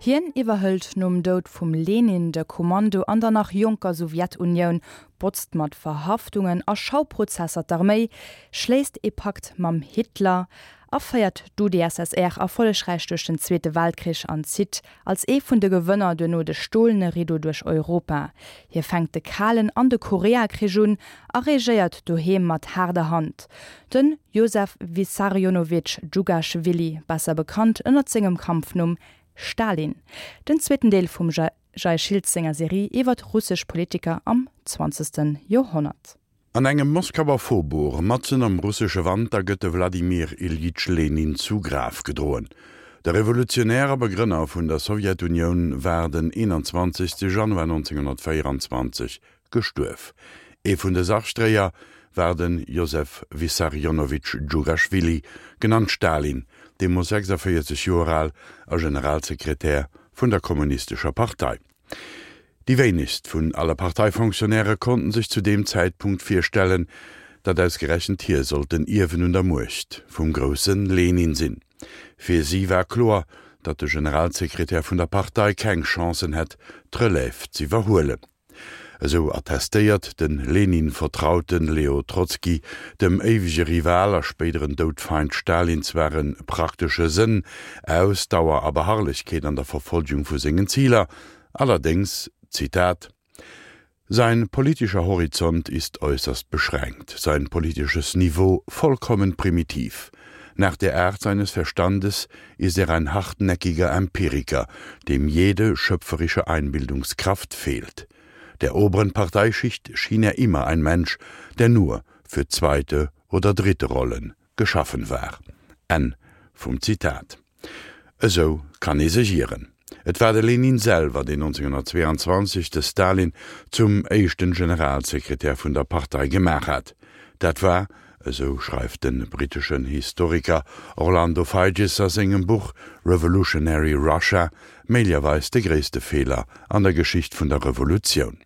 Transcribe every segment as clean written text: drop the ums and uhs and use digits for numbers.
Hien iwwerhëlt nom Doud vum Lenin de Kommando an der nach jonker Sowjetunioun, botzt mat Verhaftungen a Schauprozesser d'Arméi, schléisst ee Pakt mam Hitler a féiert d'UdSSR erfollegräich duerch den Zweete Weltkrich an zitt als ee vun de Gewënner duerno de stolene Rideau duerch Europa. Hie fänkt de Kalen an de Koreakrich un a regéiert doheem mat haarder Hand. De Josef Wissarionowitsch Djugaschwili, besser bekannt ënnert sengem Kampfnumm Stalin. Den zweeten Deel vum Jay Schiltz senger Serie iwwert russesch Politiker am zwanzegste Joerhonnert. An engem Moskauer Faubourg, matzen am russesche Wanter, gëtt de Wladimir Iljitsch Lenin zu Graf gedroen. De Revolutionär a Begrënner vun der Sowjetunioun war den 21. Januar 1924 gestuerf. Ee vun de Sargdréier war de Josef Wissarionowitsch Djugaschwili, genannt Stalin, deemools 46 Joer al a Generalsekretär vun der Kommunistescher Partei. Déi wéinegst vun alle Parteifonctionnairë konnten sech zu deem Zäitpunkt virstellen, datt ausgerechent hie sollt den Ierwen un der Muecht vum grousse Lenin sinn. Fir si war kloer, datt de Generalsekretär vun der Partei keng Chancen hätt, d'Relève z'iwwerhuelen. Esou attestéiert de Lenin-Vertraute Leo Trotzki dem éiwege Rival a spéideren Doudfeind Stalin zwar e praktesche Sënn, Ausdauer a Beharrlechkeet an der Verfolgung vu sengen Ziler, allerdéngs, Zitat, Sein politischer Horizont ist äußerst beschränkt, sein politisches Niveau vollkommen primitiv. Nach der Art seines Verstandes ist er ein hartnäckiger Empiriker, dem jede schöpferische Einbildungskraft fehlt. Der oberen Parteischicht schien er immer ein Mensch, der nur für zweite oder dritte Rollen geschaffen war. Enn vum Zitat. Esou kann ee sech ieren. Et war de Lenin selwer, deen 1922 de Stalin zum éischten Generalsekretär vun der Partei gemaach hat. Dat war, esou schreift de britteschen Historiker Orlando Figes a sengem Buch Revolutionary Russia, méiglerweis de gréisste Feeler an der Geschicht vun der Revolutioun.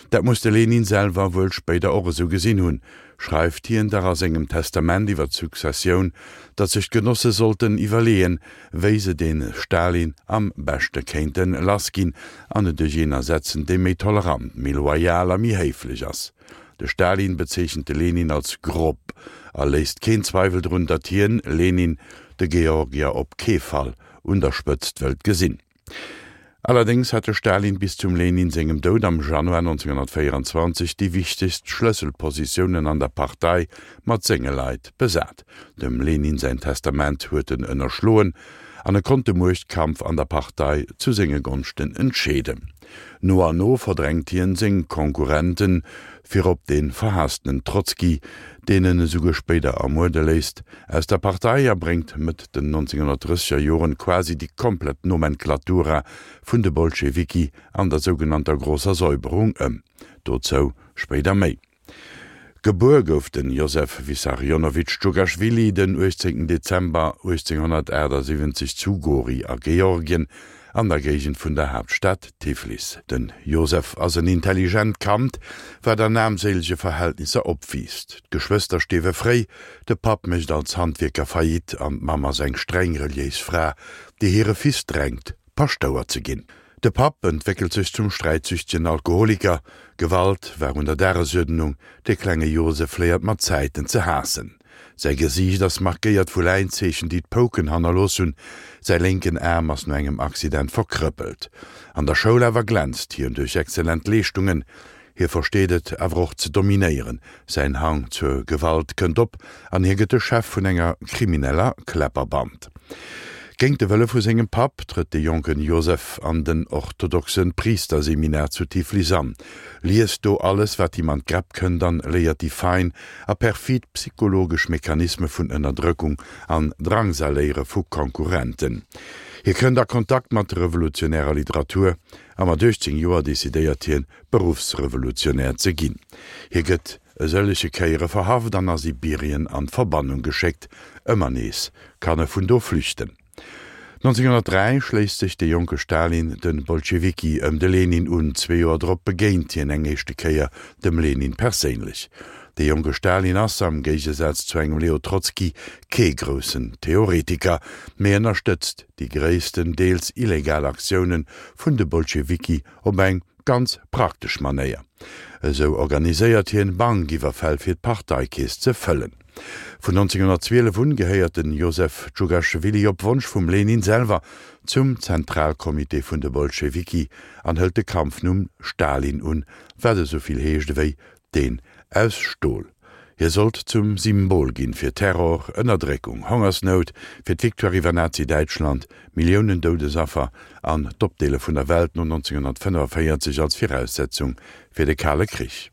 Dat muss de Lenin selwer wuel spéider och esou gesinn hunn, schreift hien dach a sengem Testament iwwer d'Successioun, datt sech d'Genosse sollten iwwerleeën, wéi se dee Stalin am beschte kéinte lass ginn an en duerch een ersetzen, dee méi tolerant, méi loyal a méi héiflech ass. De Stalin bezeechent de Lenin als grob a léisst keen Zweiwel drun, datt hien, Lenin, de Georgier op kee Fall un der Spëtzt wëllt gesinn. Allerdéngs hat de Stalin bis zum Lenin sengem Doud am Januar 1924 déi wichtegst Schlësselpositiounen an der Partei mat senge Leit besat. Dem Lenin säin Testament huet en ënnerschloen an e konnt de Muechtkampf an der Partei zu senge Gonschten entscheeden. No an no verdrängt hien seng Konkurrenten, virop dee verhaasstenen Trotzki, deen en esouguer spéider ermuerde léisst, aus der Partei a bréngt Mëtt den 1930er Joren quasi déi komplett Nomenklatura vun de Bolschewiki an der sougenannter Großer Säuberung ëm. Dozou spéider méi. Gebuer gouf de Josef Wissarionowitsch Djugaschwili den 18 Dezember 1878 zu Gori a Georgien, an der Géigend vun der Haaptstad Tiflis. Den Josef ass en intelligent Kand, wat an aarmséilege Verhältnisser opwiisst. D'Geschwëster stierwe fréi, de Papp mécht als Handwierker Faillite an d'Mamm ass eng streng reliéis Fra, déi hire Fils drängt, Paschtouer ze ginn. De Papp entwéckelt sech zum sträitsüchtegen Alkoholiker. Gewalt war un der Dagesuerdnung. De klenge Josef léiert mat Zäiten ze haassen. Säi Gesiicht ass markéiert vu Läinzeechen, déi d'Pouken hannerlooss hunn. Säi lénken Aarm ass no engem Accident verkrëppelt. An der Schoul awer glänzt hien duerch exzellent Leeschtungen. Hie versteet et awer och ze dominéieren, säin Hang zur Gewalt kënnt op an hie gëtt de Chef vun enger krimineller Kläpperband. Géint de Wëlle vu sengem Papp trëtt de jonken Josef an den orthodoxe Priisterseminar zu Tiflis an, liest do alles wat him an d'Gräpp kënnt an léiert déi fein a perfid psychologesch Mechanisme vun Ënnerdrëckung an Drangsaléiere vu Konkurrenten. Hie kënnt a Kontakt mat revolutionärer Literatur a mat 18 Joer decidéiert hien, Beruffsrevolutionär ze ginn. Hie gëtt e sëllege Kéiere verhaft an a Sibirien an d'Verbannung geschéckt. Ëmmer nees kann e vun do flüchten. 1903 schléisst sech de jonke Stalin de Bolschewiki ëm de Lenin un. Zwee Joer drop begéint hien eng éischte Kéier dem Lenin perséinlech. De jonke Stalin ass, am Géigesaz zu engem Leo Trotzki, kee groussen Theoretiker, mee ënnerstëtzt déi gréisstendeels illegal Aktioune vun de Bolschewiki op eng ganz praktesch Manéier. Esou organiséiert hien Bankiwwerfäll fir d'Parteikeess ze fëllen. Vun 1912 un gehéiert den Josef Djugaschwili op Wonsch vum Lenin selwer zum Zentralcomité vun de Bolschewiki an hëlt de Kampfnumm Stalin un, wat esou vill heescht ewéi deen aus Stol. Hie sollt zum Symbol ginn fir Terror, Ënnerdréckung, Hongersnout, fir d'Victoire iwwer Nazi-Däitschland, Milliounen Doudesaffer an d'Opdeele vun der Welt no 1945 als Viraussetzung fir de Kale Krich.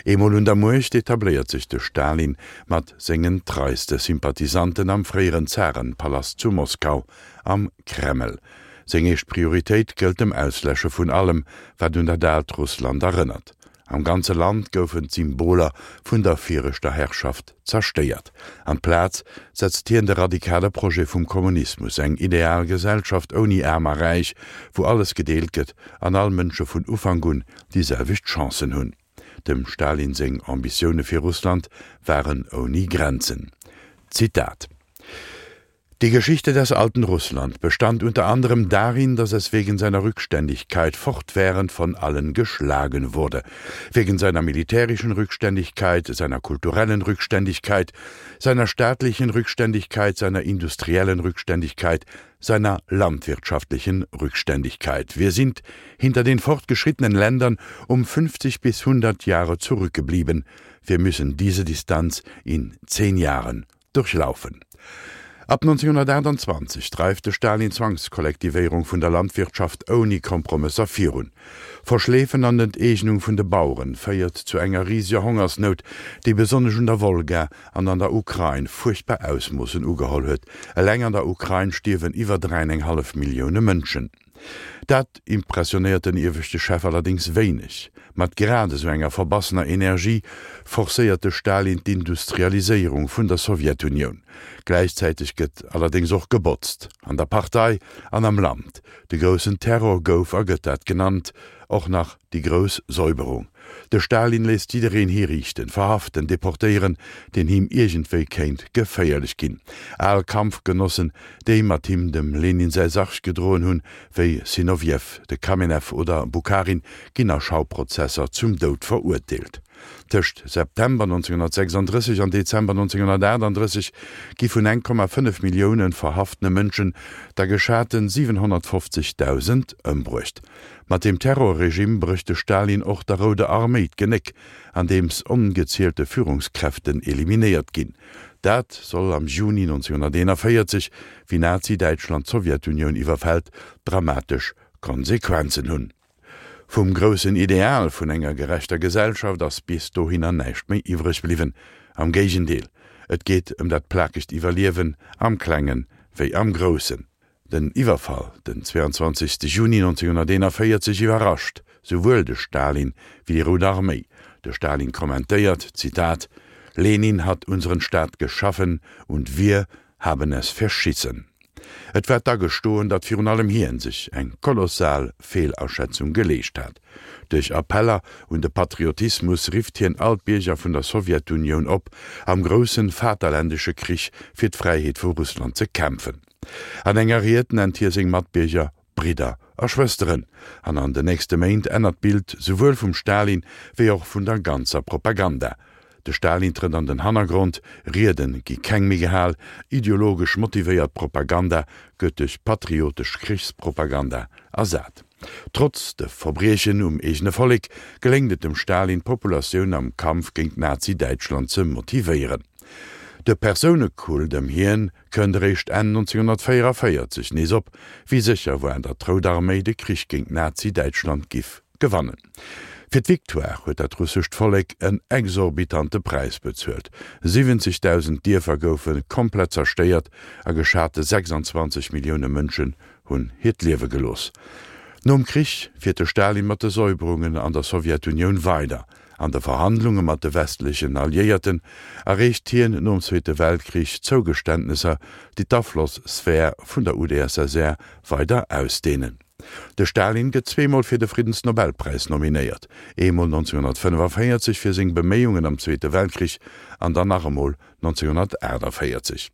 Eemol un der Muecht etabléiert sech de Stalin mat sengen treiste Sympathisanten am fréieren Zarenpalast zu Moskau, am Kreml. Seng éischt Prioritéit gëllt dem Ausläsche vun allem, wat un dat aalt Russland erënnert. Am ganze Land goufen d'Symboler vun der viregter Herrschaft zerstéiert. An d'Plaz setzt hien de radikale Projet vum Kommunismus, eng ideal Gesellschaft ouni Aarm a Räich, wou alles gedeelt gëtt an all Mënsche vun Ufank un déi selwecht Chancen hunn. Dem Stalin seng Ambitioune fir Russland waren ouni Grenzen. Zitat. Die Geschichte des alten Russland bestand unter anderem darin, dass es wegen seiner Rückständigkeit fortwährend von allen geschlagen wurde. Wegen seiner militärischen Rückständigkeit, seiner kulturellen Rückständigkeit, seiner staatlichen Rückständigkeit, seiner industriellen Rückständigkeit, seiner landwirtschaftlichen Rückständigkeit. Wir sind hinter den fortgeschrittenen Ländern um 50 bis 100 Jahre zurückgeblieben. Wir müssen diese Distanz in zehn Jahren durchlaufen. Ab 1928 dreift de Stalin d'Zwangskollektivéierung vun der Landwirtschaft ouni Kompromësser virun. Verschleefen an Enteegnung vun de Baueren féiert zu enger riseger Hongersnout, déi besonnesch un der Wolga an an der Ukrain fuerchtbar Ausmoossen ugeholl huet. Eleng an der Ukrain stierwen iwwer 3,5 Millioune Mënschen. Dat impressionéiert den ieweschte Chef allerdéngs wéineg. Mat grad esou enger verbassener Energie forcéiert de Stalin d'Industrialiséierung vun der Sowjetunioun. Gläichzäiteg gëtt allerdéngs och gebotzt, an der Partei an am Land. De groussen Terror gouf a gëtt dat genannt, och nach déi grouss Säuberung. De Stalin léisst jiddereen hiriichten, verhaften, deportéieren, deen him iergendwéi kéint geféierlech ginn. Al Kampfgenossen, déi mat him dem Lenin säi Sarg gedroen hunn, wéi Sinowjew, de Kamenew oder Bukharin, ginn a Schauprozesser zum Doud verurteelt. Tëscht September 1936 an Dezember 1938 gi vun 1,5 Millioune verhaftene Mënschen der geschate 750.000 ëmbruecht. Mat deem Terrorregime brécht de Stalin och der Rouder Arméi d'Genéck, andeems ongezielte Führungskräften eliminéiert ginn. Dat soll am Juni 1941, wéi Nazi-Däitschland d'Sowjetunioun iwwerfält, dramatesch Konsequenzen hunn. Vum groussen Ideal vun enger gerechter Gesellschaft ass bis dohinner näischt méi iwwreg bliwwen. Am Géigendeel, et geet ëm dat plakegt Iwwerliewen, am Klengen wéi am Groussen. Den Iwwerfall den 22 Juni 1941 iwwerrascht souwuel de Stalin wéi déi Rout Arméi. De Stalin kommentéiert, Zitat, Lenin hat unseren Staat geschaffen und wir haben es verschissen. Et war d'Agestoen, datt virun allem hien sech eng kolossal Feelaschätzung geleescht hat. Duerch Appeller un de Patriotismus rifft hien all d'Bierger vun der Sowjetunioun op, am groussen vaterländesche Krich fir d'Fräiheet vu Russland ze kämpfen. An enger Ried nennt hie seng Matbierger Bridder a Schwësteren, an an den nächste Méint ännert d'Bild souwuel vum Stalin wéi och vun der ganzer Propaganda. De Stalin trëtt an den Hannergrond, Riede gi keng méi gehal, ideologesch motivéiert Propaganda gëtt duerch patriotesch Krichspropaganda ersat. Trotz de Verbriechen um eegene Vollek geléngt et dem Stalin d'Populatioun am Kampf géint Nazi-Däitschland ze motivéieren. De Persounekult ëm hien kënnt eréischt Enn 1944 nees op, wéi sécher war, datt d'Rout Arméi de Krich géint Nazi-Däitschland giff gewannen. Fir d'Victoire huet dat russescht Vollek en exorbitante Präis bezuelt, 70.000 Dierfer goufe komplett zerstéiert a geschate 26 Millioune Mënschen hunn hiert Liewe gelooss. Nom Krich fiert de Stalin mat de Säuberungen an der Sowjetunioun weider. An de Verhandlunge mat de westlechen Alliéierten erreecht hien nom Zweete Weltkrich Zougeständnesser, déi d'Aflossphär vun der UdSSR weider ausdeenen. De Stalin gëtt zweemol fir de Friddensnobelpräis nominéiert, eemol 1945 fir seng Beméiungen am Zweete Weltkrich an dann nach emol 1948.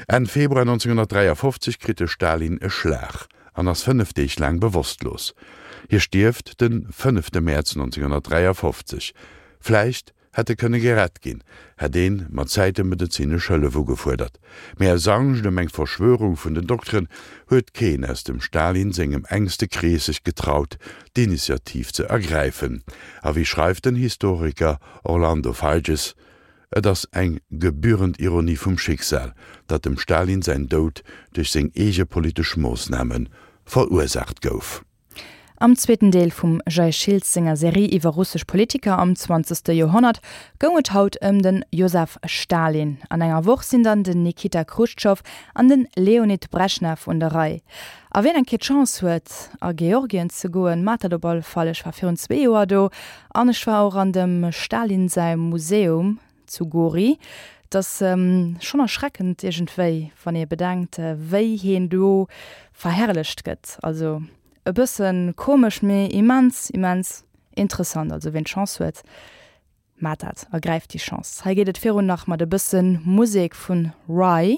Enn Februar 1953 kritt de Stalin e Schlag an ass 5 Deeg laang bewosstlos. Hie stierft de fënnefte Mäerz 1953. Vläicht hätt e kënne gerett ginn, hätt een mat Zäite medezinesch Hëllef ugefuerdert. Mee aus Angscht ëm eng Verschwörung vun den Dokteren huet keen aus dem Stalin sengem enkste Krees sech getraut, d'Initiativ ze ergräifen. A wéi schreift den Historiker Orlando Figes, Et ass eng gebührend Ironie vum Schicksal, datt dem Stalin säin Doud duerch seng eege politesch Moossname verursaacht gouf. Am zweeten Deel vum Jay Schiltz senger Serie iwwer russesch Politiker am zwanzegste Joerhonnert goung et haut ëm de Josef Stalin. An enger Woch sinn dann den Nikita Chruschtschow an de Leonid Breschnew un der Rei. A wien eng Kéier d'Chance huet a Georgien ze goen, maacht dat op alle Fall. Ech war virun zwee Joer do An ech war och an dem Stalin säi Museum zu Gori. Et ass schonn erschreckend iergendwéi, wann ee bedenkt, wéi heen do verherrlecht gëtt. Also e bësse komesch, mee immens, immens interessant. Also wien d'Chance huet, maacht dat, ergräift déi Chance. Hei geet et virun nach mat e bësse Musek vun Rye.